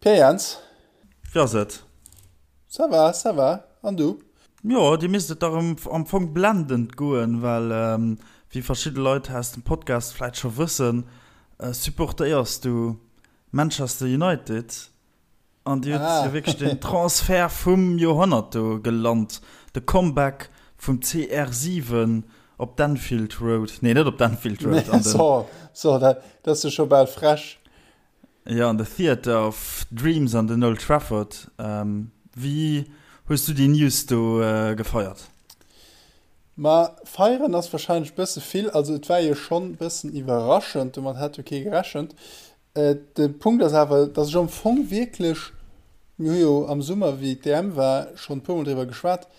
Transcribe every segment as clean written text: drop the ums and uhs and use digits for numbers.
Pierre Jans. Wéi ass et? Ça va, ça va. An du? Jo, dir misst et dach am Fong blendend goen, well wéi verschidde Leit aus dem Podcast vläit scho wëssen, supportéiers du Manchester United an dir hutt jo wierklech den Transfert vum Joerhonnert do gelant, de Comeback vum CR7 op d'Anfield Road, nee net op d'Anfield Road, an den. So, dat ass jo scho bal frech. Jo, an de Theatre of Dreams an den Old Trafford. Wéi hues du déi News do gefeiert? Ma feieren ass warscheinlech bësse vill. Also et war jo schonn bëssen iwwerraschend, domat hat jo kee gerechent. De Punkt ass awer, datt ech am Fong wierklech, mir hu jo am Summer wéi d'EM war schonn e puermol driwwer geschwat,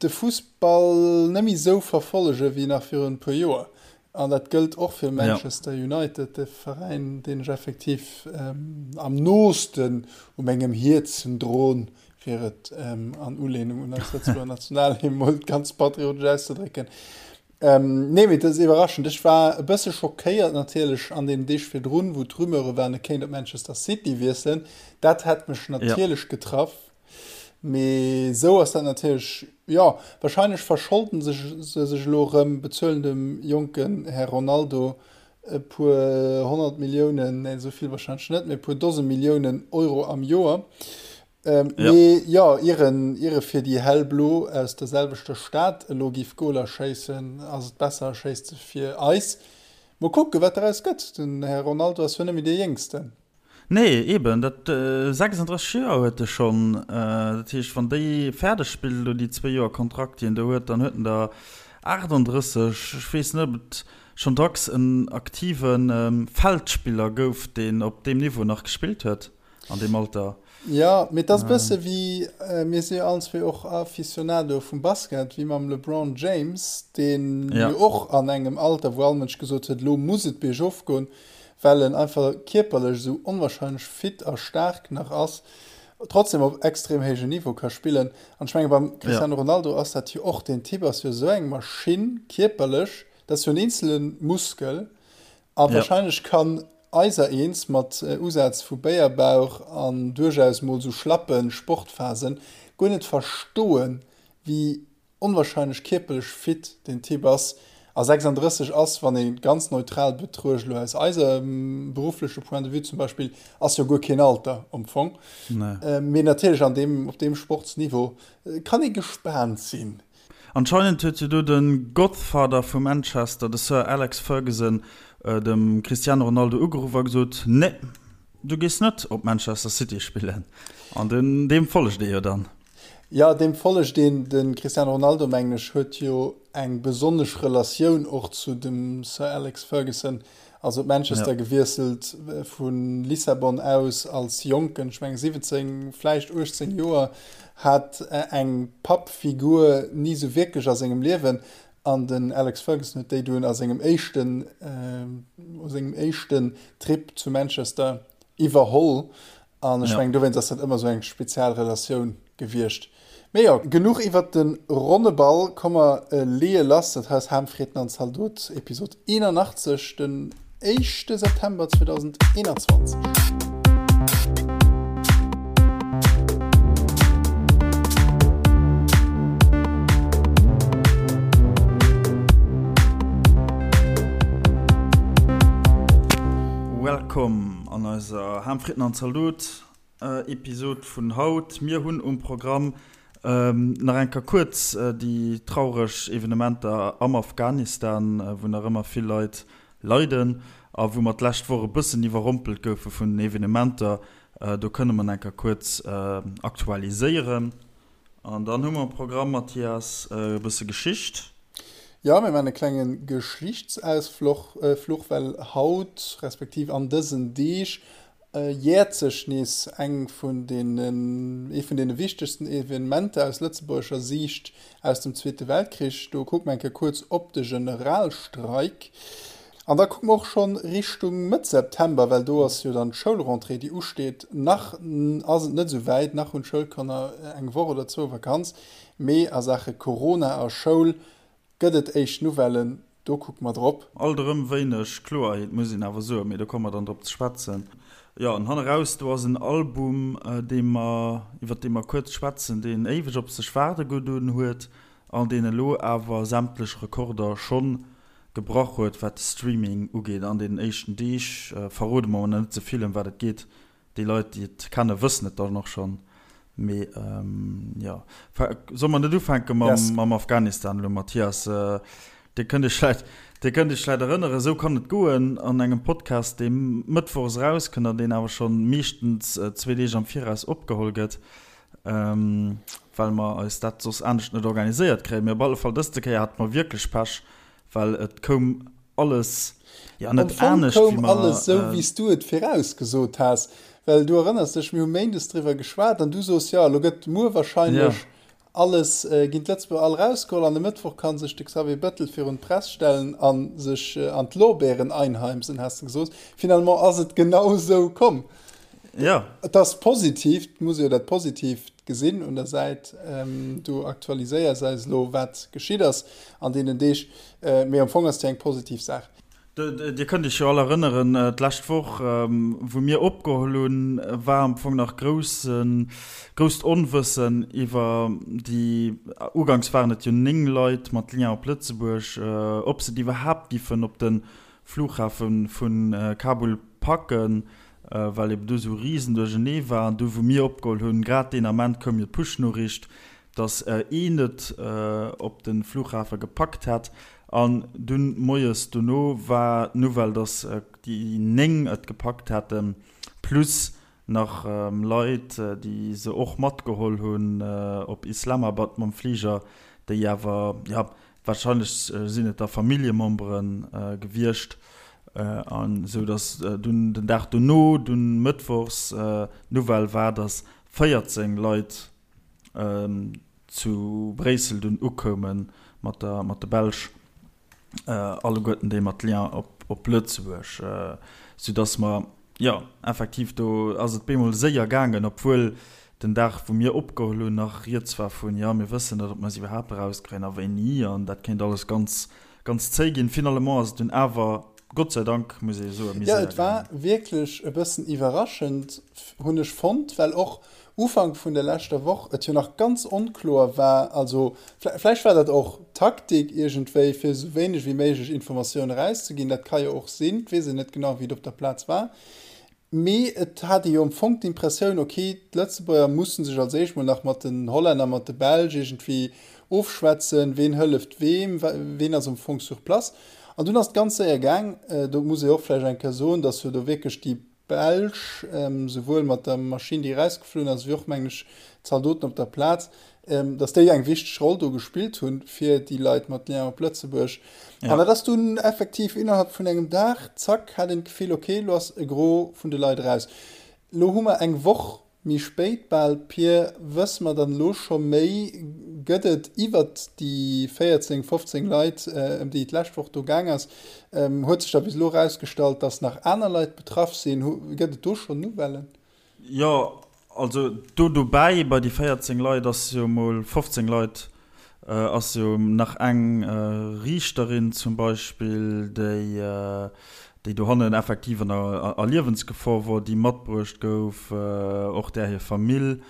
de Fussball net méi esou verfollege wéi nach virun e puer Joer. An dat gëllt och fir Manchester United, de Veräin, deen ech effektiv am noosten u mengem Hierzen droen, fir et an Ulehnung un eis Lëtzebuerger Nationalhymn mol ganz patriotesch auszedrécken. Nee, mee dat ass iwwerraschend. Ech war e bësse schockéiert natierlech an deenen Deeg virdrun, wou d'Rumeure waren, e kéint op Manchester City wiesselen. Dat hätt mech natierlech getraff. Mee esou ass dat natierlech, jo, wahrscheinlech verscholden sech se sech elo erëm, bezuelen dem jonken Här Ronaldo e puer 100 Milliounen, nee esou vill wahrscheinlech net, mee e puer Dose Milliounen Euro am Joer. Mee jo, ier en, ier e fir déi Hellblo aus der selwechter Stad elo giff Goler schéissen, ass et besser e schéisst se fir eis. Mol kucken, wat daraus gëtt, den Här Ronaldo ass jo net méi dee Jéngsten. Nee, eben, dat 36 Joer huet e schonn. Dat heescht, wann déi fäerdeg spillt elo déi zwéi Joer Kontrakt, déi en do huet, dann huet en der 38. Ech weess net, ob et schonn dacks en aktive Feldspiller gouf, deen op deem Niveau nach gespillt huet an deem Alter. Jo, mee et ass e bësse wéi, mir si jo allen zwee och Aficionado vum Basket, wéi mam LeBron James, deen jo och an engem Alter, wou all Mënsch gesot huet, elo muss et biergof goen, well en einfach kierperlech esou onwahrscheinlech fit a staark nach ass, trotzdem op extrem héijem Niveau ka spillen. An ech menge beim Cristiano Ronaldo ass dat jo och, deen Typ ass jo esou eng Maschinn kierperlech, dat ass jo en eenzele Muskel a wahrscheinlech kann eiser eens mat Usaz vu Béierbauch an duerchaus mol esou schlappe Sportphasen guer net verstoen, wéi Onwahrscheinlech kierperlech fit deen Typ ass. A 36 ass, wann ee ganz neutral betruecht, elo aus eisem beruffleche Point de vue zum Beispill, ass jo guer keen Alter am Fong. Mee natierlech an deem, op deem Sportsniveau kann ee gespaant sinn. Anscheinend huet jo do de Godfather vu Manchester, de Sir Alex Ferguson, dem Cristiano Ronaldo ugeruff a gesot, Nee, du gees net op Manchester City spillen. An deem follegt ee jo dann. Jo, deem follegt een. De Cristiano Ronaldo, mengen ech, huet jo eng besonnesch Relatioun och zu dem Sir Alex Ferguson. Ass op Manchester gewiesselt vu Lissabon aus als Jonken, ech mengen 17, vläicht 18 Joer, hat eng Pappfigur ni sou wierklech a sengem Liewen. An den Alex Ferguson huet déi dunn a sengem éischten, u sengem éischten Trip zu Manchester iwwerholl. An ech mengen, dowéinst ass dat ëmmer esou eng spezial Relatioun gewiescht. Mee jo, genuch iwwert de ronne Ball. Komm mer leeë lass. Dat hei ass Ham, Fritten an Zaldot, Episod 81, den éischte September 2021. Welcome An eiser Ham, Fritten an Zaldot Episod vun haut, mir hunn um Programm nach eng Kéier kuerz déi traureg Evenementer am Afghanistan, wou nach ëmmer vill Leit leiden a wou mer d'lescht Woch e bëssen iwwerrompelt goufe vun den Evenementer. Do kënne mer nach eng Kéier kuerz aktualiséieren. An dann hu mer um Programm, Mathias, e bësse Geschicht. Jo, mir maachen e klenge Geschlichtsausfluch, well haut, respektiv an dësen Deeg, jäert sech nees eng vun deenen, ee vun deene wichtegsten Evenementer aus lëtzebuergescher Siicht aus dem Zweete Weltkrich. Do kucke mer eng Kéier kuerz op de Generalstreik. An da kucke mer och schonn Richtung Mëtt September, well do ass jo dann d'Schoulrentrée, déi usteet. Nach ass et net esou wäit, nach hunn d'Schoulkanner eng Woch oder zwou Vakanz, mee a Saache Corona a Schoul gëtt et éischt Nouvellen, do kucke mer drop. Alt erëm wéineg Kloerheet, muss een awer soen, mee do komme mer dann drop ze schwätzen. Jo, an hanneraus, do ass en Album, dee mer, iwwer dee mer kuerz schwätzen, deen éiweg op sech waarde gedoen huet an deen elo awer sämtlech Rekorder schonn gebrach huet, wat de Streaming ugeet an deenen éischten Deeg. Verrode mer mol nach net ze vill, ëm wat et geet. Déi Leit, déi et kennen, wëssen et dann och schonn. Mee jo, solle mer net ufänke mam Afghanistan elo, Mathias? Dir kënnt iech vläicht, Dir kënnt iech vläicht erënneren, esou kann et goen an engem Podcast, dee mëttwochs erauskënnt an deen awer schonn meeschtens zwee Deeg am Viraus opgeholl gëtt, well mer eis dat soss anescht net organiséiert kréien. Mee op alle Fall, dëste Kéier hate mer wierklech Pech, well et koum alles, jo net anescht, wéi mer. Am Fong koum alles esou, wéi s du et virausgesot has. Well du erënners dech, mir hu méindes driwwer geschwat an du sos, jo, elo gëtt muer wahrscheinlech Alles ginn d'Lëtzebuerger all erausgeholl an e Mëttwoch ka sech de Xavier Bettel virun d'Press stellen a sech an d'Lorbeeren einheimsen, has de gesot. Finalement ass et genau esou komm. Jo. Et ass positiv, et muss ee jo dat Positiivt gesinn un der Säit. Du aktualiséiers eis elo, wat geschitt ass an deenen Deeg, mee am Fong ass et jo eng positiv Saach. Dir kënnt Iech jo all erënneren, d'lescht Woch, wou mir opgeholl hunn, war am Fong nach groussen, grousst Onwëssen iwwer déi, uganks waren et jo 9 Leit mat Lien op Lëtzebuerg, ob se et iwwerhaapt giffen op de Flughafe vu Kabul packen, well eben do esou riesen Duerchernee war. An du, wou mir opgeholl hunn, grad deen Ament koum jo d'Push-Noriicht, dass een et op de Flughafe gepackt hätt. An dunn moies dono war d'Nouvelle, dass déi 9 et gepackt hätten, plus nach Leit, déi se och matgeholl hunn op Islamabad mam Fliger, déi awer, jo, warscheinlech sinn et da Familljemembere gewiescht, an esou dass dunn den Dag dono, dunn mëttwochs, d'Nouvelle war, dass 14 Leit zu Bréissel dunn ukoume mat der mat de Belsch, alleguerten déi mat Lien op op Lëtzebuerg, soudass mer, jo, effektiv do ass et bemol séier gaangen, obwuel den Dag wou mir opgeholl hunn nach rieds war vun, jo mir wëssen net ob mer se iwwerhaapt erauskréien a wéini an dat kéint alles ganz ganz zéi ginn. Finalement ass et dunn awer, Gott sei Dank muss ee soen, méi séier gaangen. Jo, et war wierklech e bëssen iwwerraschend, hunn ech fonnt, well och Ufank vun der leschter Woch et jo nach ganz onkloer war, also vläicht war dat och Taktik iergendwéi, fir esou wéineg wéi méiglech Informatioun erauszeginn, dat ka jo och sinn, et weess een net genau, wéi et op der Plaz war, mee et hat ee jo am Fong d'Impressioun, ok, d'Lëtzebuerger musse sech als éischt mol nach mat den Hollänner, mat de Belsch iergendwéi ofschwätzen, ween hëlleft weem, ween ass am Fong sur place. An dunn ass et ganz séier gaang, do muss ee och vläicht eng Kéier soen, datt jo do wierklech déi Belsch, souwuel mat der Maschinn, déi erausgeflunn ass, wéi och, mengen ech, d'Zaldoten op der Plaz, datt déi eng wichteg Roll do gespillt hunn, fir déi Leit mat Lien op Lëtzebuerg. An dat ass dunn effektiv innerhalb vun engem Dag, zack, hat een d'Gefill, okay, elo ass e Gros vun de Leit eraus. Elo hu mer eng Woch Méi spéit bal, Pir, wësse mer dann elo scho méi? Gëtt et iwwert déi 14, 15 Leit, ëm déi et d'lescht Woch do gaang ass, huet sech da bis elo erausgestallt, datt nach aner Leit betraff sinn? Gëtt et do schonn Nouvellen? Jo, also do dobäi bei déi 14 Leit ass jo mol 15 Leit ass jo nach eng Riichterin zum Beispill, déi déi dohannen effektiv an der a Liewensgefor wor, déi matbruecht gouf, och där hir Famill,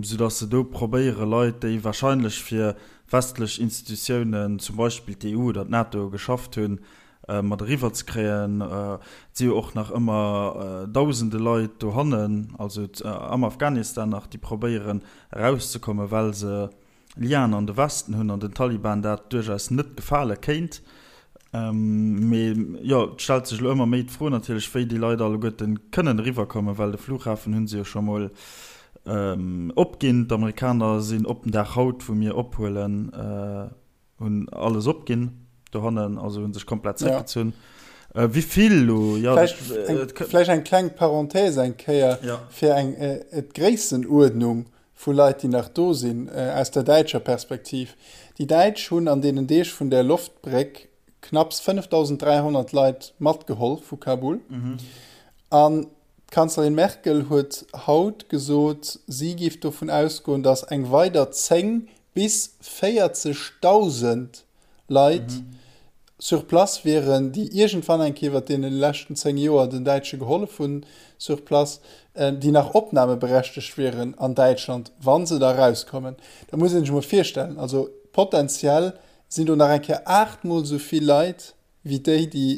soudass se do probéiere Leit, déi wahrscheinlech fir westlech Institutiounen, zum Beispill d'EU oder d'NATO, geschafft hunn, mat eriwwer ze kréien. Et si jo och nach ëmmer dausende Leit dohannen, also am Afghanistan nach, déi probéieren erauszekommen, well se Liaen an de Westen hunn an den Taliban dat duerchaus net gefale kéint. Mee jo, et stellt sech elo ëmmer méi d'Fro natierlech, wéi déi Leit alleguerte kënnen eriwwerkommen, well de Flughafen hu se jo scho mol opginn. D'Amerikaner sinn op den Dag haut, wou mir ophuelen, Hunn alles opginn dohannen, also hunn sech komplett zréckgezunn. Ja. Äh, wéi vill lo? Ja, vläicht, eng, äh, vläicht eng kleng Parenthèse eng Kéier ja. fir eng äh, d'Gréissenuerdnung vu Leit, déi nach do sinn, äh, aus der däitscher Perspektiv. Déi Däitsch hunn an deenen Deeg vun der Loftbréck knapps 5.300 Leit matgeholl vu Kabul. Mhm. An D'Kanzlerin Merkel huet haut gesot, si géif dovun ausgoen, datt eng weider 10 bis 40.000 Leit. sur place wieren, déi iergendwann eng Kéier iwwert deene leschten 10 Joer den Däitsche gehollef hunn sur place, déi nach opnahmeberechtegt wieren an Däitschland, wa se da erauskommen. Dat muss ee sech emol virstellen. Also potenziell sinn do nach eng Kéier aachtmol esou vill Leit wéi déi, déi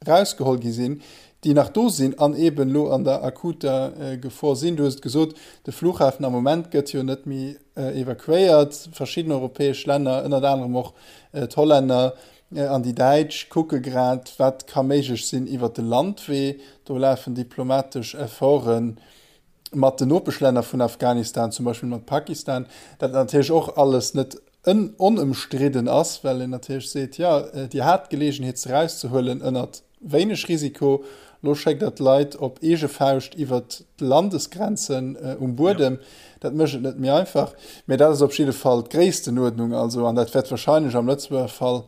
erausgeholl gi sinn, déi nach do sinn an eeben elo an der akuter Gefor sinn. Du hues et gesot, de Flughafen am Moment gëtt jo net méi evakuéiert. Verschidden europäesch Länner, ënnert anerem och d'Hollänner an déi Däitsch, kucke grad, wat ka méiglech sinn iwwert de Landwee. Do lafen diplomatesch Efforten mat den Nopeschlänner vun Afghanistan, zum Beispill mat Pakistan, dat natierlech och alles net onëmstridden ass, well een natierlech seet, jo, Dir hat d'Geleegenheet se erauszehuelen ënnert wéineg Risiko, elo schéckt Der d'Leit op eege Fauscht iwwert d'Landesgrenzen um Buedem. Dat mécht et net méi einfach. Mä dat ass op jidde Fall d'Gréisstenuerdnung. Also, an dat wäert wahrscheinlech am Lëtzebuerger Fall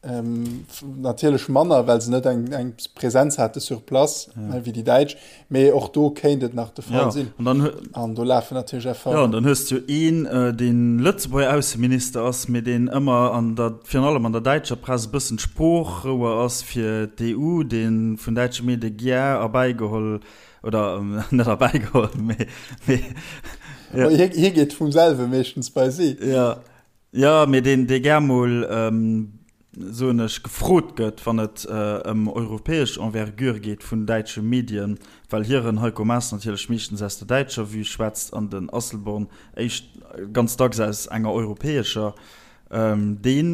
Natierlech manner, well se net eng, eng Präsenz hate sur place ja. wéi déi Däitsch, mee och do kéint et nach de Fall ja. sinn. An, dann, an do lafen natierlech Efforten. Ja, an dann hues du een, äh, deen Lëtzebuerger Ausseminister ass, mee deen ëmmer an der, virun allem an der däitscher Press e bëssen d'Sproochrouer ass fir d'EU, dee vun däitsche Medie gär erbäigeholl oder net erbäigeholl, mee, mee ja. Hie, hie geet vum selwe meeschtens bei si. Ja. Jo, mee deen, dee gär mol, soen ech, gefrot gëtt, wann et ëm europäesch Envergure geet vun däitsche Medien, well hiren Heiko Maas natierlech meeschtens aus der däitscher Vue schwätzt an den Asselborn éischt ganz dacks aus enger europäescher, dee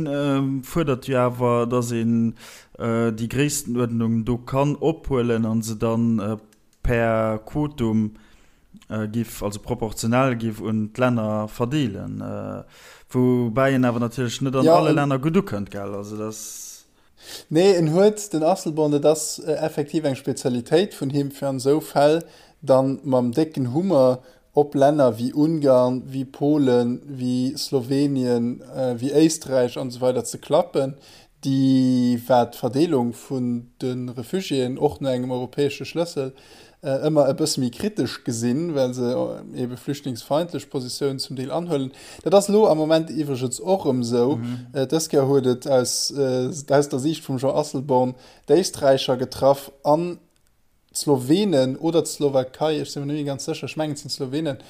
fuerdert jo awer, datt een déi Gréisstenuerdnung do kann ophuelen a se dann per Quotum giff, also proportionell giff un d'Länner verdeelen, woubäi en awer natierlech net an alle Länner gutt ukënnt, gell? Also dat ass. Nee, en huet, den Asselborn, dat ass effektiv eng Spezialitéit vun him, fir an esou Fäll dann mam décken Hummer op Länner wéi Ungarn, wéi Polen, wéi Slowenien, wéi Éisträich an esou weider ze klappen, déi, wat d'Verdeelung vun de Refugiéen och no engem europäesche Schlëssel ëmmer e bësse méi kritesch gesinn, well se ebe flüchtlingsfeindlech Positiounen zum Deel anhuelen. Dat ass elo am Moment iwwregens och erëm esou. Dës Kéier huet et aus aus der Siicht vum Jean Asselborn d'Éisträicher getraff an d'Slowenen oder d'Slowakei, ech si mer net méi ganz sécher, ech mengen et sinn d'Slowenen,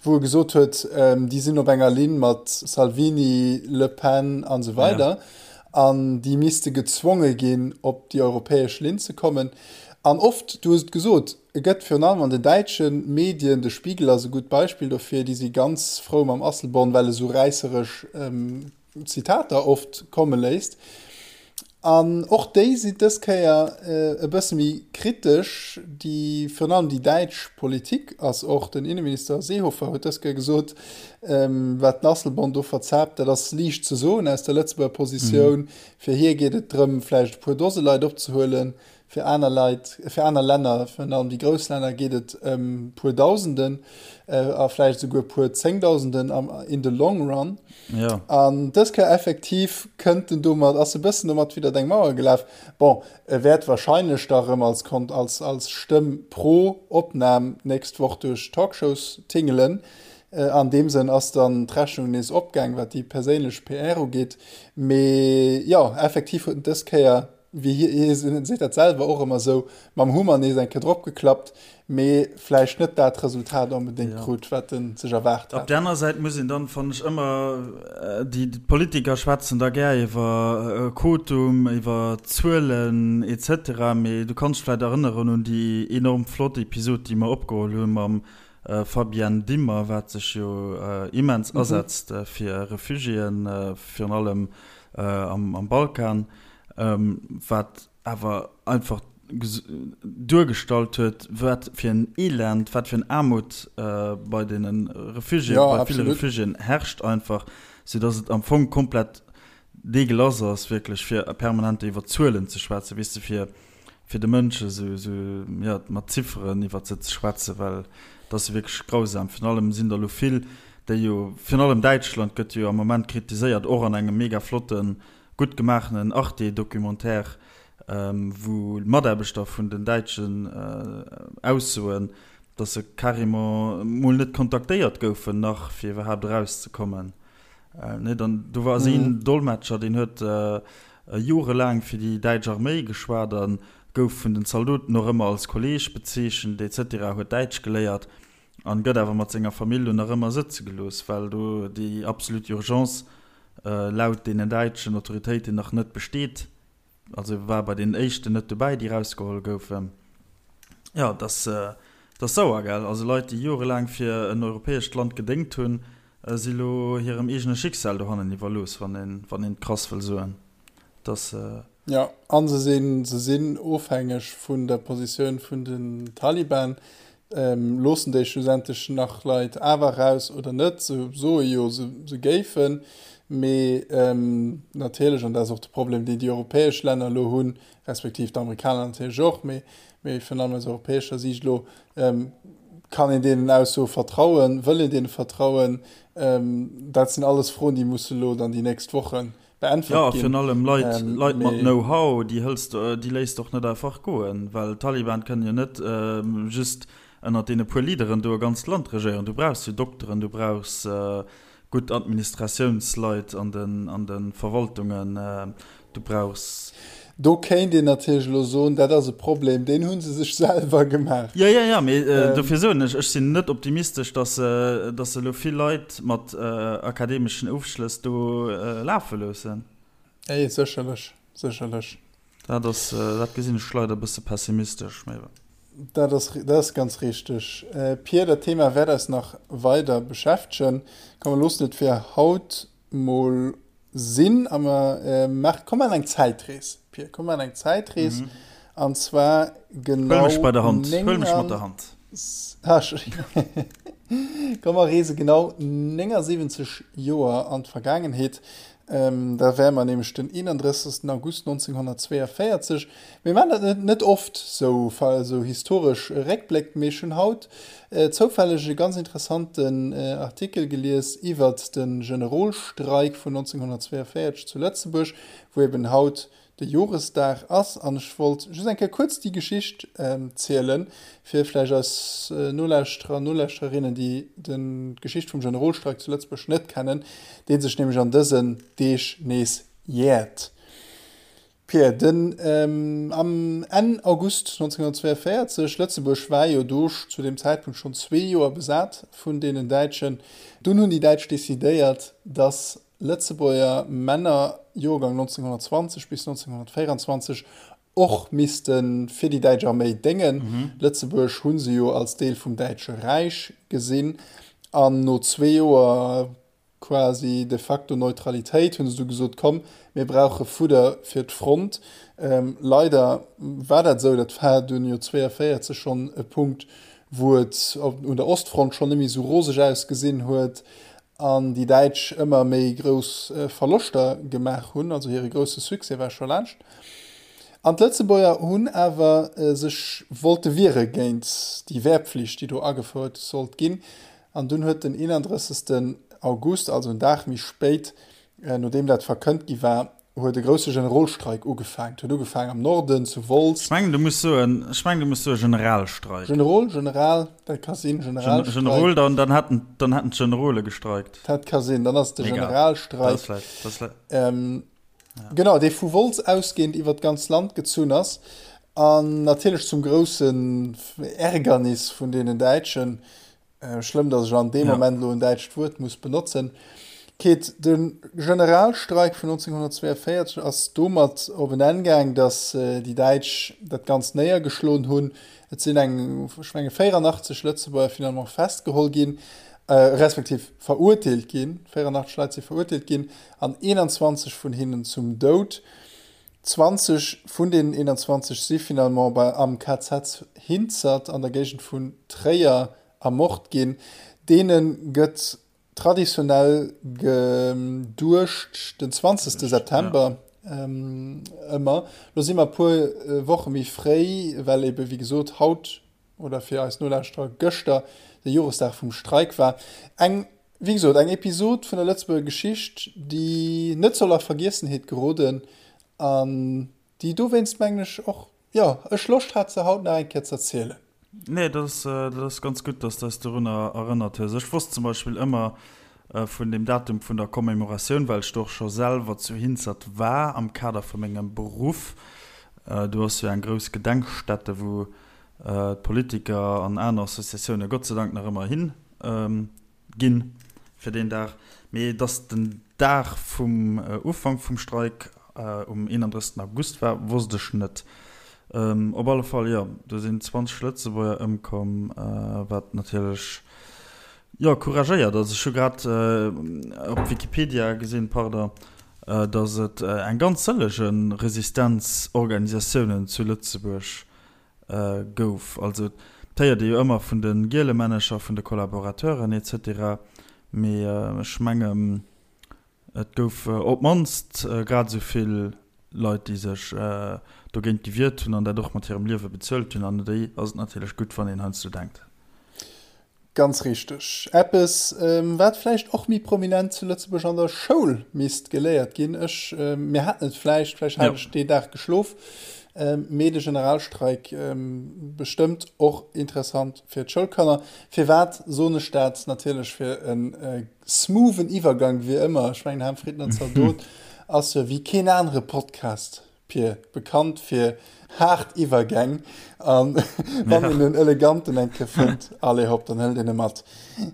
wou e gesot huet, déi sinn op enger Linn mat Salvini, Le Pen an esou weider an déi misste gezwonge ginn, op déi europäesch Linn ze kommen. An oft, du hues et gesot, e gëtt virun allem an den däitsche Medien, de Spiegel ass e gutt Beispill dofir, déi si ganz frou mam Asselborn, well e sou räisseresch Zitater oft komme léisst. An och déi sinn dës Kéier e bësse méi kritesch. Déi, virun allem déi däitsch Politik ass och, den Inneminister Seehofer huet dës Kéier gesot, wat den Asselborn do verzaapt, dat ass liicht ze soen aus der Lëtzebuerger Positioun. Fir hie geet et drëm, vläicht e puer Dose Leit opzehuelen. Fir aner Leit, fir aner Länner, virun allem déi grouss Länner, geet et ëm puer Dausenden a vläicht esouguer puer Zéngdausenden am, in the long run. Ja. An dës Kéier effektiv kënnt en domat, ass e bëssen domat widdert eng Mauer gelaf. Bon, e wäert wahrscheinlech da rëm als, als, als Stëmm pro Opnam d'nächst Woch duerch d'Talkshows tingelen. An deem Sënn ass dann d'Rechnung nees opgaang, wat déi perséinlech PR ugeet. Mee jo, effektiv huet en dës Kéier wéi hie, hie seet dat selwer och ëmmer esou, mam Hummer nees eng Kéier drop geklappt, mee vläicht net dat Resultat onbedéngt krut, wat en sech erwaart hat. Op där aner Säit muss een dann, fannen ech, ëmmer, déi Politiker schwätzen da gär iwwer Quotum, iwwer Zuelen et cetera, mee du kanns dech vläicht erënneren un déi enorm flott Episod, déi mer opgeholl hu mam Fabienne Dimmer, wat sech jo immens asetzt fir Refugiéen, virun allem am Balkan. wat awer einfach duergestallt huet, wat fir en Elend, wat fir en Aarmut bei deene Refugiéen, bei ville Refugiéen herrscht einfach, soudass et am Fong komplett deegelass ass wierklech, fir permanent iwwer Zuelen ze schwätzen, weess de, fir fir de Mënsche sou, sou, jo, mat Zifferen iwwert se ze schwätzen, well et ass jo wierklech grausam. Virun allem sinn der elo vill, déi jo, virun allem Däitschland gëtt jo am Moment kritiséiert, och an engem mega flotten Gutt gemaachenen Arte-Documentaire, wou Mataarbechter vun den Däitschen aussoen, datt se carrément mol net kontaktéiert goufen nach, fir iwwerhaapt erauszekommen. Nee, dann do war ass een Dolmetscher, deen huet. jorelaang fir déi däitsch Arméi geschwat a gouf vun den Zaldoten och ëmmer als Kolleeg bezeechent etc. Huet Däitsch geléiert an gëtt awer mat senger Famill lo nach ëmmer sëtze gelooss, well do déi absolut Urgence laut deenen däitschen Autoritéiten nach net besteet. Also war bei den éischten net dobäi, déi rausgeholl goufen. Jo, et ass, et ass sauer, gell? Also Leit, déi jorelaang fir en europäescht Land gedéngt hunn, si lo hirem eegene Schicksal dohannen iwwerlooss, wann een, wann een et krass wëll soen. Et ass. Jo, a se sinn, se sinn ofhängeg vun der Positioun vun den Taliban. Loossen déi schlussendlech nach Leit awer eraus oder net? Se soe jo, se géifen, mee natierlech, an dat ass och de Problem, deen déi europäesch Länner elo hunn, respektiv d'Amerikaner natierlech och, mee virun allem aus europäescher Siicht elo, Kann een deenen Aussoe vertrauen? Wëll een deene vertrauen? Dat sinn alles Froen, déi musse elo dann déi nächst Woche beäntwert ginn. Jo, virun allem Leit, Leit mat Know-how, déi hëls de, déi léiss de och net einfach goen, well d'Taliban kënnen jo net just ënnert deene puer Leaderen do e ganzt Land regéieren. Du brauchs jo Dokteren, du brauchs gutt Administratiounsleit an den, an de Verwaltungen, du brauchs. Do kéint een natierlech elo soen, dat ass e Problem, deen hu se sech selwer gemaach. Jo, jo, jo, mee dofir soen ech, ech sinn net optimistesch, datt se, datt se elo vill Leit mat akademeschen Ofschlëss do lafe loossen. Nee, sécherlech, sécherlech. Dat ass, dat gesinn ech leider e bësse pessimistesch, mee. Dat ass, dat ass ganz richteg, Pir. Dat Thema wäert eis nach weider beschäftegen. Komm, mer loossen et fir haut mol sinn a mer maachen, komm maachen eng Zäitrees, Pir, komm maachen eng Zäitrees an zwar genau Huel mech bei der Hand, huel mech mat der Hand. Komm mer reese genau 79 Joer an d'Vergaangenheet. Da wäre mer nämlech den 31. August 1942. Mir maachen dat net, net oft, sou, sou historesch Réckbléck, mee ech hunn haut zoufälleg e ganz interessanten Artikel gelies iwwert de Generolstreik vun 1942 zu Lëtzebuerg, wou eben haut de Joresdag ass. An ech wollt just eng Kéier kuerz déi Geschicht zielen, fir vläicht eis Nolauschterer an Nolauschtererinnen, déi d'Geschicht vum Generolstreik zu Lëtzebuerg net kennen, dee sech nämlech an dësen Deeg nees jäert. Pierre, den am Enn August 1942, Lëtzebuerg war jo do zu deem Zäitpunkt schonn zwee Joer besat vun deenen Däitschen, dunn hunn déi Däitsch decidéiert, datt Lëtzebuerger Männer, Joergang 1920 bis 1924, och misste fir déi däitsch Arméi déngen. Lëtzebuerg hu se jo als Deel vum Däitsche Räich gesinn an no zwee Joer quasi de facto Neutralitéit, hunn se du gesot, komm, mir brauche Fudder fir d'Front. Leider war dat esou, dat war dunn jo 42 schonn e Punkt, wou et un der Ostfront schonn net méi esou roseg ausgesinn huet an déi Däitsch ëmmer méi grouss Verloschter gemaach hunn, also hire grousse Succès war scho laanscht. An d'Lëtzebuerger hunn awer sech wollte wiere géint déi Wehrpflicht, déi do agefouert sollt ginn. An dunn huet den 31. August, also en Dag méi spéit, nodeem dat verkënnt gi war, huet e grousse Generolstreik ugefaangen. Et huet ugefaangen am Norden, zu Wolz. Ech mengen, du muss soen, ech mengen, du muss soe Generalstreik. Generol, General, dat ka sinn, Generalstreik. Generol, dann, dann hätten, dann hätten d'Generole gestreikt. Dat ka sinn, dann ass et de Generalstreik. Dat ass vläicht, dat ass vläicht. Genau, dee vu Wolz ausgehend iwwer d'ganz Land gezunn ass an natierlech zum groussen Ärgernis vun deenen Däitschen, Schlëmm, datt ech an deem Moment elo en däitscht Wuert muss benotzen. Keet, de Generalstreik vun 1942 ass domat op en Enn gaang, datt déi Däitsch dat Ganzt néiergeschloen hunn. Et sinn eng, ech menge 84 Lëtzebuerger finalement festgeholl ginn, respektiv verurteelt ginn. 84 Leit si verurteelt ginn an 21 vun hinnen zum Doud. 20 vun deenen 21 si finalement bei am KZ Hinzert an der Géigend vun Tréier ermort ginn. Deene gëtt traditionell geduecht den 20 September ëmmer. Lo si mer e puer Woche méi fréi, well ebe wéi gesot haut oder fir eis Nolauschterer gëschter de Joresdag vum Streik war. Eng, wéi gesot, eng Episod vun der Lëtzebuerger Geschicht, déi net soll a Vergiessenheet geroden an déi dowéinst, mengen ech, och, jo, ech Loscht hat, se haut nach eng Kéier z'erzielen. Nee, dat ass, dat ass ganz gutt, dass de eis dorunner erënnert hues. Ech wosst zum Beispill ëmmer. vun dem Datum vun der Commémoratioun, well ech do och scho selwer zu Hinzert war am Kader vu mengem Beruff. Do ass jo eng grouss Gedenkstätte, wou d'Politiker an aner Associatioune Gott sei Dank nach ëmmer hin ginn fir deen Dag. Mee dass den Dag vum Ufank vum Streik um 31. August war, wosst ech net. Op alle Fall, jo, do sinn 20 Lëtzebuerger ëmkomm, wat natierlech, jo, couragéiert ass. Ech hu grad op Wikipedia gesinn, pardon, dass et eng ganz sëllege Resistenzorganisatiounen zu Lëtzebuerg gouf. Also et héiert ee jo ëmmer vun de Gielemännecher, vun de Collaborateuren etc. Mee ech mengen, et gouf op d'mannst grad esou vill Leit, déi sech dogéint gewiert hunn an dat och mat hirem Liewe bezuelt hunn. An u déi ass et natierlech gutt, wann een heiansdo denkt. Ganz richteg. Eppes, wat vläicht och méi prominent zu Lëtzebuerg an der Schoul misst geléiert ginn. Ech, mir haten et vläicht, vläicht hat ech dee Dag geschlof, mee de Generalstreik bestëmmt och interessant fir d'Schoulkanner. Firwat soen ech dat? Natierlech fir e smoothen Iwwergang, wéi ëmmer. Ech mengen, Ham Fritten an Zaldot ass jo wéi keen anere Podcast. Pir, bekannt fir haart Iwwergäng, an wann een en eleganten eng Kéier fënnt, allez hopp, dann hëlt een e mat.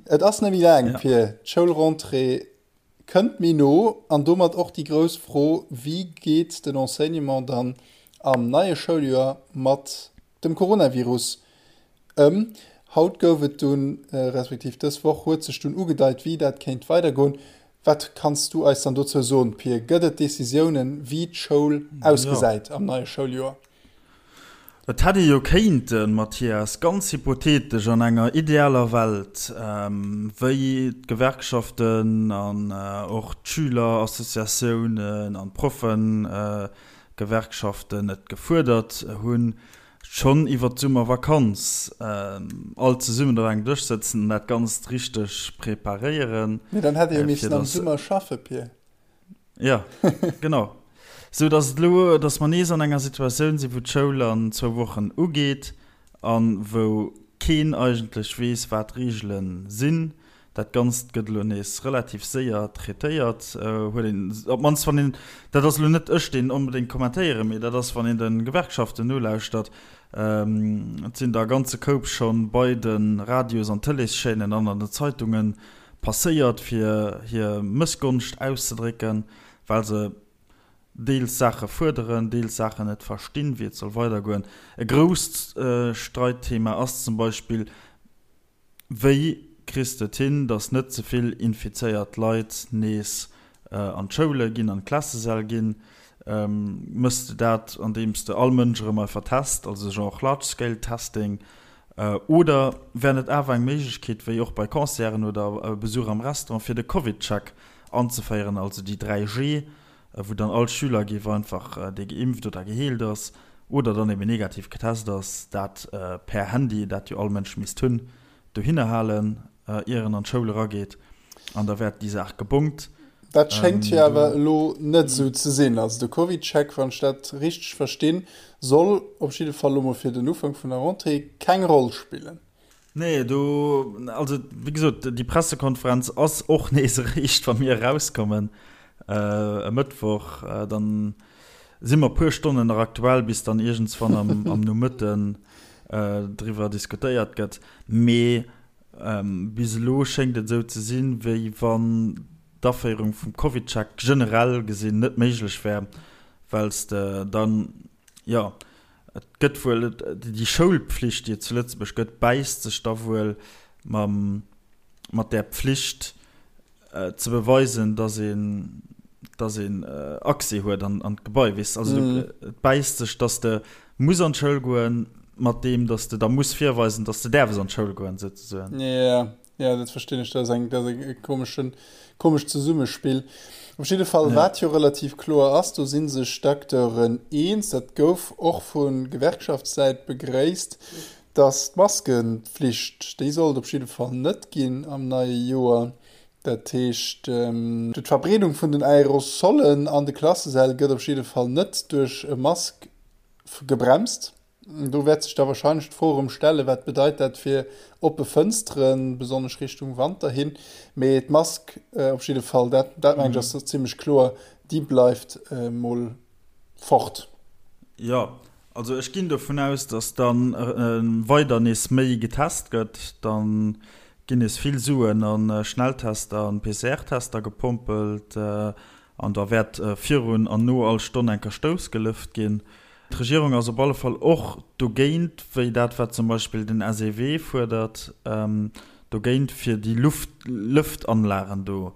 Et ass net méi laang, Pir, d'Schoulrentrée kënnt méi no an domat och déi grouss Fro, Wéi geet den Enseignement dann am neie Schouljoer mat dem Coronavirus ëm? Haut gouf et dunn, respektiv dës Woch huet sech dunn ugedeit, wéi dat kéint weidergoen. Wat kanns du eis dann dozou soen, Pir? Gëtt et Decisiounen, wéi d'Schoul ausgesäit am neie Schouljoer? Et hätt ee jo kéinten, Mathias, ganz hypothetesch, an enger idealer Welt, wéi d'Gewerkschaften an och d'Schülerassociatiounen an d'Proffegewerkschaften et gefuerdert hunn, schonn iwwer d'Summervakanz all zesummen op engem Dësch sëtzen an dat Ganzt richteg preparéieren. Mee dann hätt ee jo missen am Summer schaffe, Pir. Jo, genau. Sou datt et elo, datt mer nees an enger Situatioun sinn, wou d'Schoul an zwou Wochen ugeet a wou keen eigentlech weess, wat d'Reegele sinn. Dat Ganzt gëtt elo nees relativ séier traitéiert, huet een, op d'mannst wann een, dat ass elo net ech, deen onbedéngt kommentéieren, mee dat ass, wann een de Gewerkschaften nolauschtert, et sinn der e ganze Koup scho bei de Radios an Tëleeschaînen an an den Zeitunge passéiert, fir hir Mëssgonscht auszedrécken, well se deels Saache fuerderen, deels Saachen net verstinn, wéi et soll weidergoen. E grousst Streitthema ass zum Beispill, Wéi kriss de et hin, datt net ze vill infizéiert Leit nees an d'Schoule ginn, an d'Klassesäll ginn? Mëss de dat, andeems de all Mënsch erëm einfach test, also genre large scale testing? Oder wär net awer eng Méiglechkeet, wéi och bei Concerten oder Besuch am Restaurant, fir de Covid-Check anzeféieren, also déi 3G, wou dann all Schüler géif einfach, dee geimpft oder geheelt ass oder dann eben negativ getest ass, dat per Handy, dat jo all Mënsch misst hunn, dohinner halen, ier en an d'Schoul erageet, an da wär déi Saach gebongt. Dat schéngt jo awer elo net esou ze sinn. Also de CovidCheck, wann ech dat richteg verstinn, soll op jidde Fall elo mol fir den Ufank vun der Rentrée keng Roll spillen. Nee, do, also wéi gesot, déi Pressekonferenz ass och nees eréischt, wa mir erauskommen e Mëttwoch. Dann si mer e puer Stonnen nach aktuell, bis dann iergendswann am, am Nomëtten driwwer diskutéiert gëtt. Mee bis elo schéngt et esou ze sinn, wéi wann d'Aféierung vum CovidCheck generell gesinn net méiglech wär, well s de dann, jo, Et gëtt wuel, déi Schoulpflicht, déi et zu Lëtzebuerg gëtt, bäisst sech da wuel mam, mat där Pflicht ze beweisen, dass een, dass een Accès huet an, an d'Gebai, weess de. Also et bäisst sech, dass de muss an d'Schoul goen, mat deem, dass de da muss virweisen, dass de däerfs an d'Schoul goen, souzesoen. Jo. Ja, dat verstinn ech. Dat ass eng, dat ass e komeschen, komescht Zesummespill. Op jidde Fall, ja. Wat jo relativ kloer ass, do si sech d'Acteuren eens, dat gouf och vu Gewerkschaftssäit begréisst, datt d'Maskenpflicht, déi sollt op jidde Fall net ginn am neie Joer. Dat heescht, d'Verbreedung vun den Aerosolen an de Klassesäll gëtt op jidde Fall net duerch e Mask gebremst. Do wäert sech da wahrscheinlech d'Fro erëm stellen, wat bedeit dat fir oppe Fënsteren, besonnesch Richtung Wanter hin. Mee d'Mask op jidde Fall, dat, dat mengen ech ass zimmlech kloer, déi bleift mol fort. Jo, also ech ginn dovun aus, datt da weider nees méi getest gëtt. Da ginn nees vill Suen a Schnelltester an PCR-Tester gepompelt an da wäert virun an no all Stonn eng Kerstouss gelëft ginn. D'Regierung ass op alle Fall och dogéint, wéi dat wat zum Beispill den SEW fuerdert, dogéint fir déi Luft-Lëftanlagen do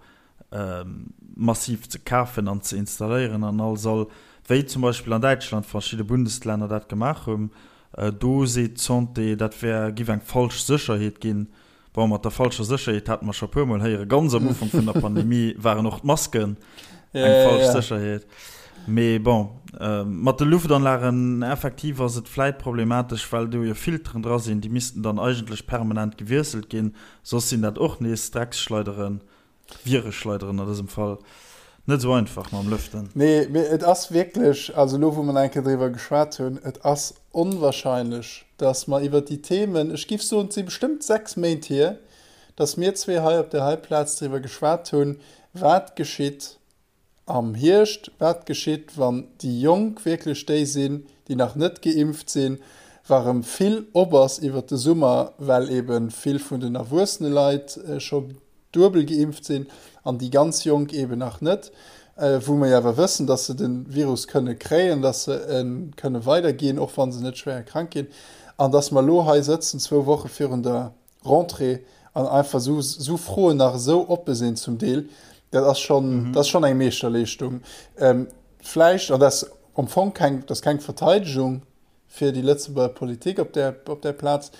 massiv ze kafen an ze installéieren an all Sall, wéi zum Beispill an Däitschland verschidde Bundesländer dat gemaach hunn. Do seet d'Santé, dat wär, giff eng falsch Sécherheet ginn. Bon, mat der falscher Sécherheet hate mer scho e puermol héieren, ganz am Ufank vun der Pandemie waren och d'Masken eng falsch Sécherheet. Mee bon, mat de Luftanlagen effektiv ass et vläit problematesch, well do jo Filteren dra sinn, déi missten dann eigentlech permanent gewiesselt ginn, soss sinn dat och nees Drecksschleideren. Vireschleideren an dësem Fall. Net esou einfach mam Lëften. Nee, mee et ass wierklech, also elo wou mer nach eng Kéier driwwer geschwat hunn, et ass onwahrscheinlech, dass mer iwwert déi Themen, ech géif soen, et si bestëmmt 6 Méint hier, dass mir zwee hei op där hei Plaz driwwer geschwat hunn, wat geschitt am Hierscht, wat geschitt, wann déi Jonk wierklech déi sinn, déi nach net geimpft sinn, wa rëm vill op ass iwwert de Summer, well ebe vill vun den erwuessene Leit scho duebel geimpft sinn an déi ganz Jonk eben nach net, wou mer jo awer wëssen, dass se de Virus kënne kréien, dass se e kënne weiderginn, och wa se net schwéier krank ginn, an dass mer elo hei sëtzen, zwou Woche virun der Rentrée, an einfach esou, esou Froen nach esou oppe sinn zum Deel, dat ass schonn, dat ass schonn eng Meeschterleeschtung. Vläicht, an dat ass am Fong keng, dat ass keng Verteidegung, fir déi Lëtzebuerger Politik op där, op där Plaz.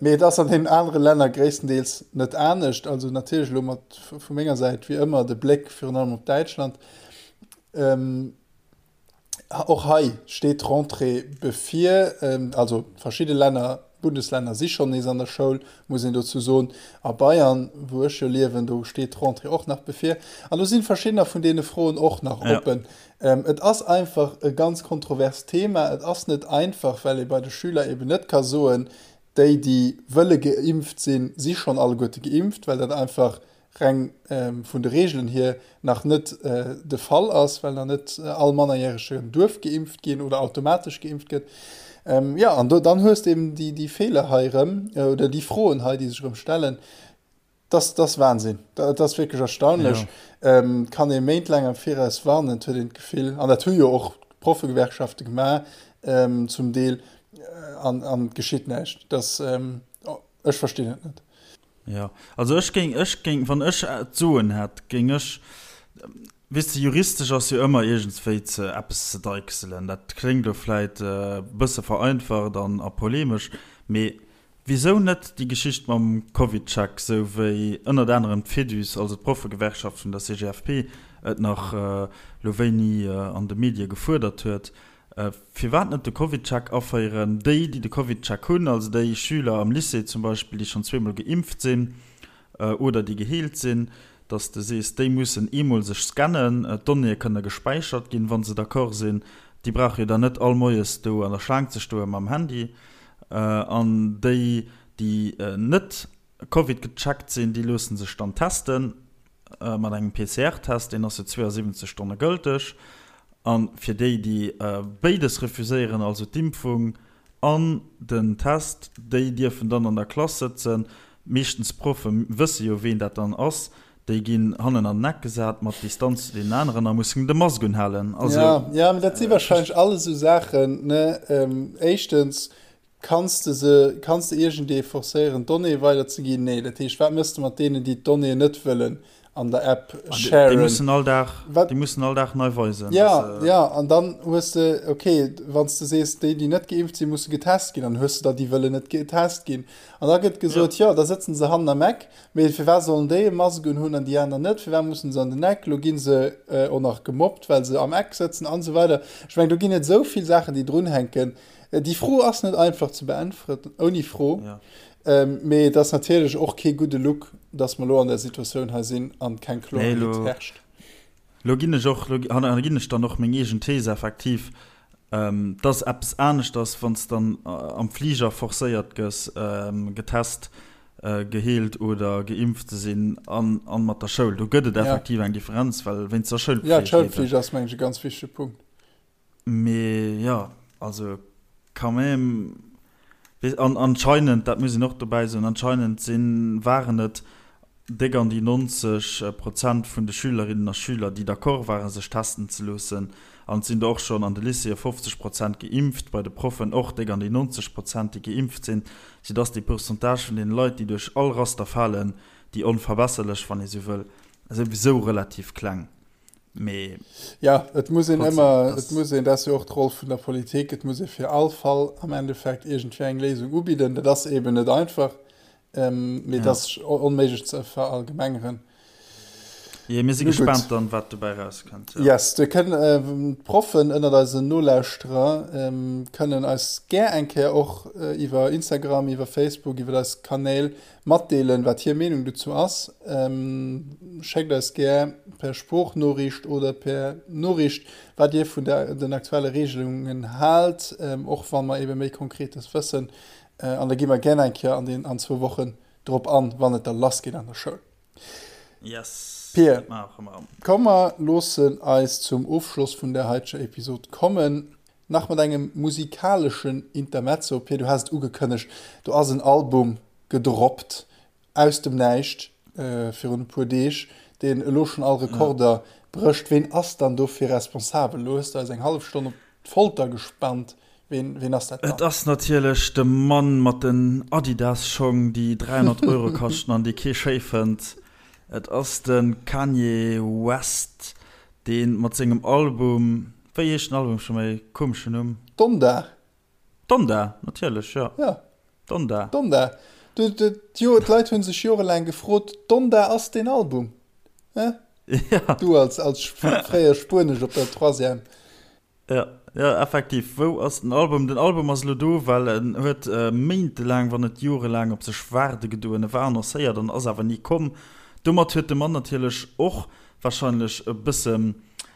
Mee et ass an deenen anere Länner gréisstendeels net anescht. Also natierlech elo mat vu menger Säit wéi ëmmer de Bléck virun allem op Däitschland. Och hei steet d'Rentrée bevir. Also verschidde Länner, Bundeslänner si schonn nees an der Schoul, muss een dozou soen. A Bayern, wou ech jo liewen, do steet d'Rentrée och nach bevir. An do si verschiddener vun deene Froen och nach oppen. Et ass einfach e ganz kontroverst Thema. Et ass net einfach, well ee bei de Schüler eben net ka soen, déi, déi wëlle geimpft sinn, si schonn alleguerte geimpft, well dat einfach reng vun de Reegelen hier nach net de Fall ass, well nach net all Mannerjäregen duerf geimpft ginn oder automatesch geimpft gëtt. Jo, an do, dann hues de eben déi Feeler hei erëm oder déi Froen hei, déi sech erëm stellen. Das, das Wahnsinn. Dat ass wierklech erstaunlech. Ja. Ähm, kann ee méintlaang am Viraus warnen, huet een d'Gefill. An dat hu jo och d'Proffegewerkschafte gemaach, ähm, zum Deel, äh, an, an geschitt näischt. Das, ähm, oh, ech verstinn et net. Ja, also ech géing, ech géing, wann ech d'Soen hätt, géing ech, weess de, juristesch ass jo ëmmer iergendswéi ze eppes ze deichselen. Dat kléngt elo vläit e bësse vereinfacht an a polemesch, mee Wisou net déi Geschicht mam CovidCheck, sou wéi ënnert anerem d'Fédus, also d'Proffegewerkschaft vun der CGFP, et nach lo wéini an de Medie gefuerdert huet? Firwat net de CovidCheck aféieren? Déi, déi de CovidCheck hunn, also déi Schüler am Lycée zum Beispill, déi schonn zweemol geimpft sinn oder déi geheelt sinn, dass de sees, déi mussen eemol sech scannen, d'Donnéeë kënne gespäichert ginn, wa se d'accord sinn. Déi brauche jo dann net all moies do an der Schlaang ze stoe mam Handy. An déi, déi net Covid gecheckt sinn, déi loosse sech dann teste mat engem PCR-Test, deen ass jo 72 Stonne gëlteg. A fir déi, déi béides refuséieren, also d'Impfung an den Test, déi dierfen dann an der Klass sëtzen. Meeschtens d'Proffe wësse jo, ween dat dann ass. Déi ginn hannen an den Eck gesat, mat Distanz zu deenen aneren a mussen de Mask unhalen. Also, ja, ja, mee dat si wahrscheinlech alles esou Saachen, ne? Éischtens, kanns de se, kanns de iergendee forcéieren, d'Donnéeë weiderzeginn? Nee. Dat heescht, wat méchs de mat deenen, déi d'Donnéeën net wëllen an der App sharen? Déi mussen all Dag, déi mussen all Dag nei weisen. Ja, ja, an dann hues de, okay, wann s de sees, déi, déi net geimpft sinn, musse getest ginn, dann hues de der, déi wëllen net getest ginn. An da gëtt gesot, jo, da sëtzen se hannen am Eck. Mee firwat sollen déi e Mask un hunn an déi aner net? Firwat mussen se an den Eck? Lo gi se och nach gemobbt, well se am Eck sëtzen an esou weider. Ech mengen, do ginn et esou vill Saachen, déi drunhänken. Déi Fro ass net einfach ze beäntweren, ouni Fro. Mee et ass natierlech och kee gudde Look, dass mer elo an där Situatioun hei sinn an keng Kloerheet herrscht. Lo ginn ech och, lo ginn ech dann och meng eegen Thees effektiv. Et ass eppes aneschters, wann s dann am Fliger forcéiert gëss, getest, geheelt oder geimpft ze sinn, an mat der Schoul. Do gëtt et effektiv eng Differenz, well wéinst der Schoulpflicht. Jo, d'Schoulpflicht ass, mengen ech, e ganz wichtege Punkt. Mee jo, also quand même, an anscheinend, dat muss een och dobäi soen, anscheinend sinn, waren et déck an déi 90 Prozent vun de Schülerinnen a Schüler, déi d'accord waren, sech testen ze loossen. An et sinn der och schonn an de Lycéeë 50 Prozent geimpft, bei de Proffen och déck an déi 90 Prozent, déi geimpft sinn, soudass dee Pourcentage vun deene Leit, déi duerch all Raster falen, déi onverbesserlech, wann ee sou wëll, souwisou relativ kleng. Mee Ja, et muss een ëmmer, et muss een, dat ass jo och d'Roll vun der Politik, et muss ee fir all Fall am Endeffekt iergendwéi eng Léisung ubidden. Dat ass eeben net einfach, mee et ass onméiglech ze verallgemengeren. Jee, mir si gespaant dann, wat dobäi erauskënnt. Ja. Yes, do kënnen d'Proffen ënnert eisen Nolauschterer kënnen eis gär eng Kéier och iwwer Instagram, iwwer Facebook, iwwer eis Kanäl Matdeelen, wat hir Meenung dozou ass. Schéckt eis gär per Sproochnoriicht oder per Noriicht, wat Dir vun den aktuelle Reegelungen haalt, och wa mer ebe méi Konkretes wëssen. An da gi mer gär eng Kéier an den an zwou Wochen drop an, wann et da lass geet an der Schoul. Yes, Pir, komm mer loossen eis zum Ofschloss vun der heiteger Episod kommen. Nach mat engem musikaleschen Intermezzo, Pir, du has et ugekënnegt, do ass en Album gedroppt aus dem Näischt virun e puer Deeg, deen elo schonn all Rekorder brécht. Ween ass dann dofir responsabel? Elo hues de eis eng hallef Stonn op d'Folter gespannt. Ween, ween ass dat dann? Et ass natierlech de Mann mat den Adidas-Schong, déi 300 Euro kaschten an déi kee schéi fënnt. Et ass de Kanye West, dee mat sengem Album Wéi heescht den Album scho méi? Komeschen Numm. Donda. Donda, natierlech, jo. Ja. Donda. Donda. Du, du, jo, d'Leit hu sech jorelaang gefrot, Donda ass deen Album? Hä? Ja. Du als, als fréier Spuenesch op der Troisième. Ja, ja, effektiv. Wou ass den Album? Den Album ass elo do, well en huet méintelaang, wann net jorelaang op sech waarde gedoen. E war annoncéiert an ass awer ni komm. Domat huet de Mann natierlech och wahrscheinlech e bëssen,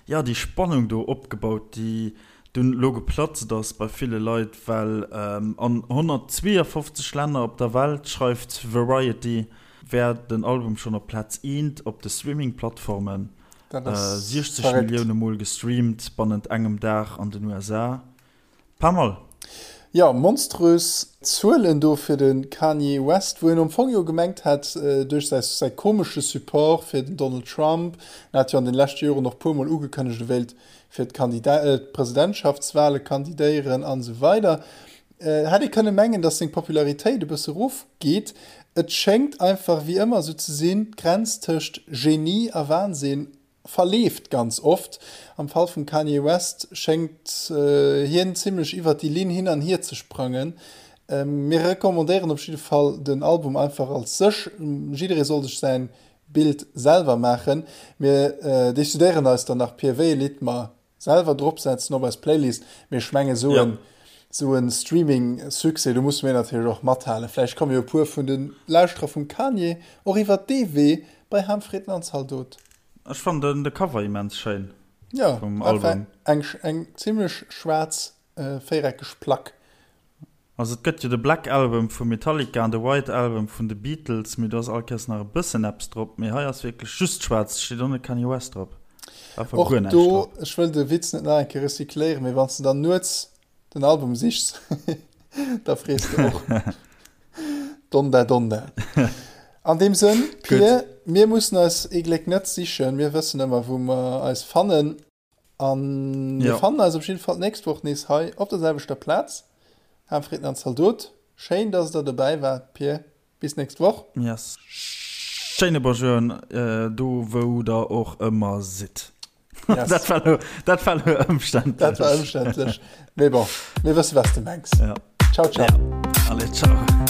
jo, déi Spannung do opgebaut, déi dunn elo geplatzt ass bei ville Leit, well an 152 Länner op der Welt, schreift Variety, wär den Album schonn op Plaz eent op de Streaming-Plattformen, 60 Millioune Mol gestreamt bannent engem Dag an den USA. Pas mal. Jo, monströs Zuelen do fir de Kanye West, wou een am Fong jo gemengt hat, duerch säi säi komesche Support fir den Donald Trump, en hat jo an den leschte Joren och puer mol ugekënnegt, e wéilt fir d'Presidentschaftswale kandidéieren an esou weider, hätt ee kënne mengen, datt seng Popularitéit e bësse rofgeet. Et schéngt einfach wéi ëmmer esou ze sinn, d'Grenz tëscht Genie a Wahnsinn verleeft ganz oft. Am Fall vum Kanye West schéngt hien zimmlech iwwert déi Linn hin an hier ze sprangen. Mir recommandéieren op jidde Fall den Album einfach als sech. Jidderee soll sech säin Bild selwer maachen. Mir decidéieren eis dann nach pir wéi e Lidd mer Selwer drop setzen op eis Playlist, mee ech mengen esou en esou en Streaming Succès, do musse mir natierlech och mathalen. Vläicht komme jo e puer vun de Lauschterer vum Kanye och iwwert dee Wee bei Ham Fritten an Zaldot. Ech fannen de Cover immens schéin Jo, vum einfach Album. eng eng zimlech schwaarz véiereckeg Plack. Also et gëtt jo de Black Album vu Metallica an de White Album vun de Beatles, mee do ass all Kéiers nach e bëssen eppes drop, mee hei ass wierklech just schwaarz, et steet och net Kanye West drop, einfach Och guer näischt do, drop. ech wëll de Witz net nach eng Kéier recycléieren, mee wann s de dann nuets den Album sichs, da frees de och Donda Donda. An deem Sënn, Pir, mir mussen eis ee Gléck net sichen, mir wëssen ëmmer wou mer eis fannen. An mir ja. fannen eis op jeden Fall d'nächst Woch nees hei op der selwechter Plaz. Ham Fritten an Zaldot. Schéin, dass der dobäi waart, Pir. Bis nächst Woch. Yes. Schéine Bonjour äh, do wou der och ëmmer sidd. Yes. dat war lo, dat war lo ëmständlech. Dat war ëmständlech. Mee bon, mir wësse was de mengs. Ja. Ciao, ciao. Ja. Allez, ciao.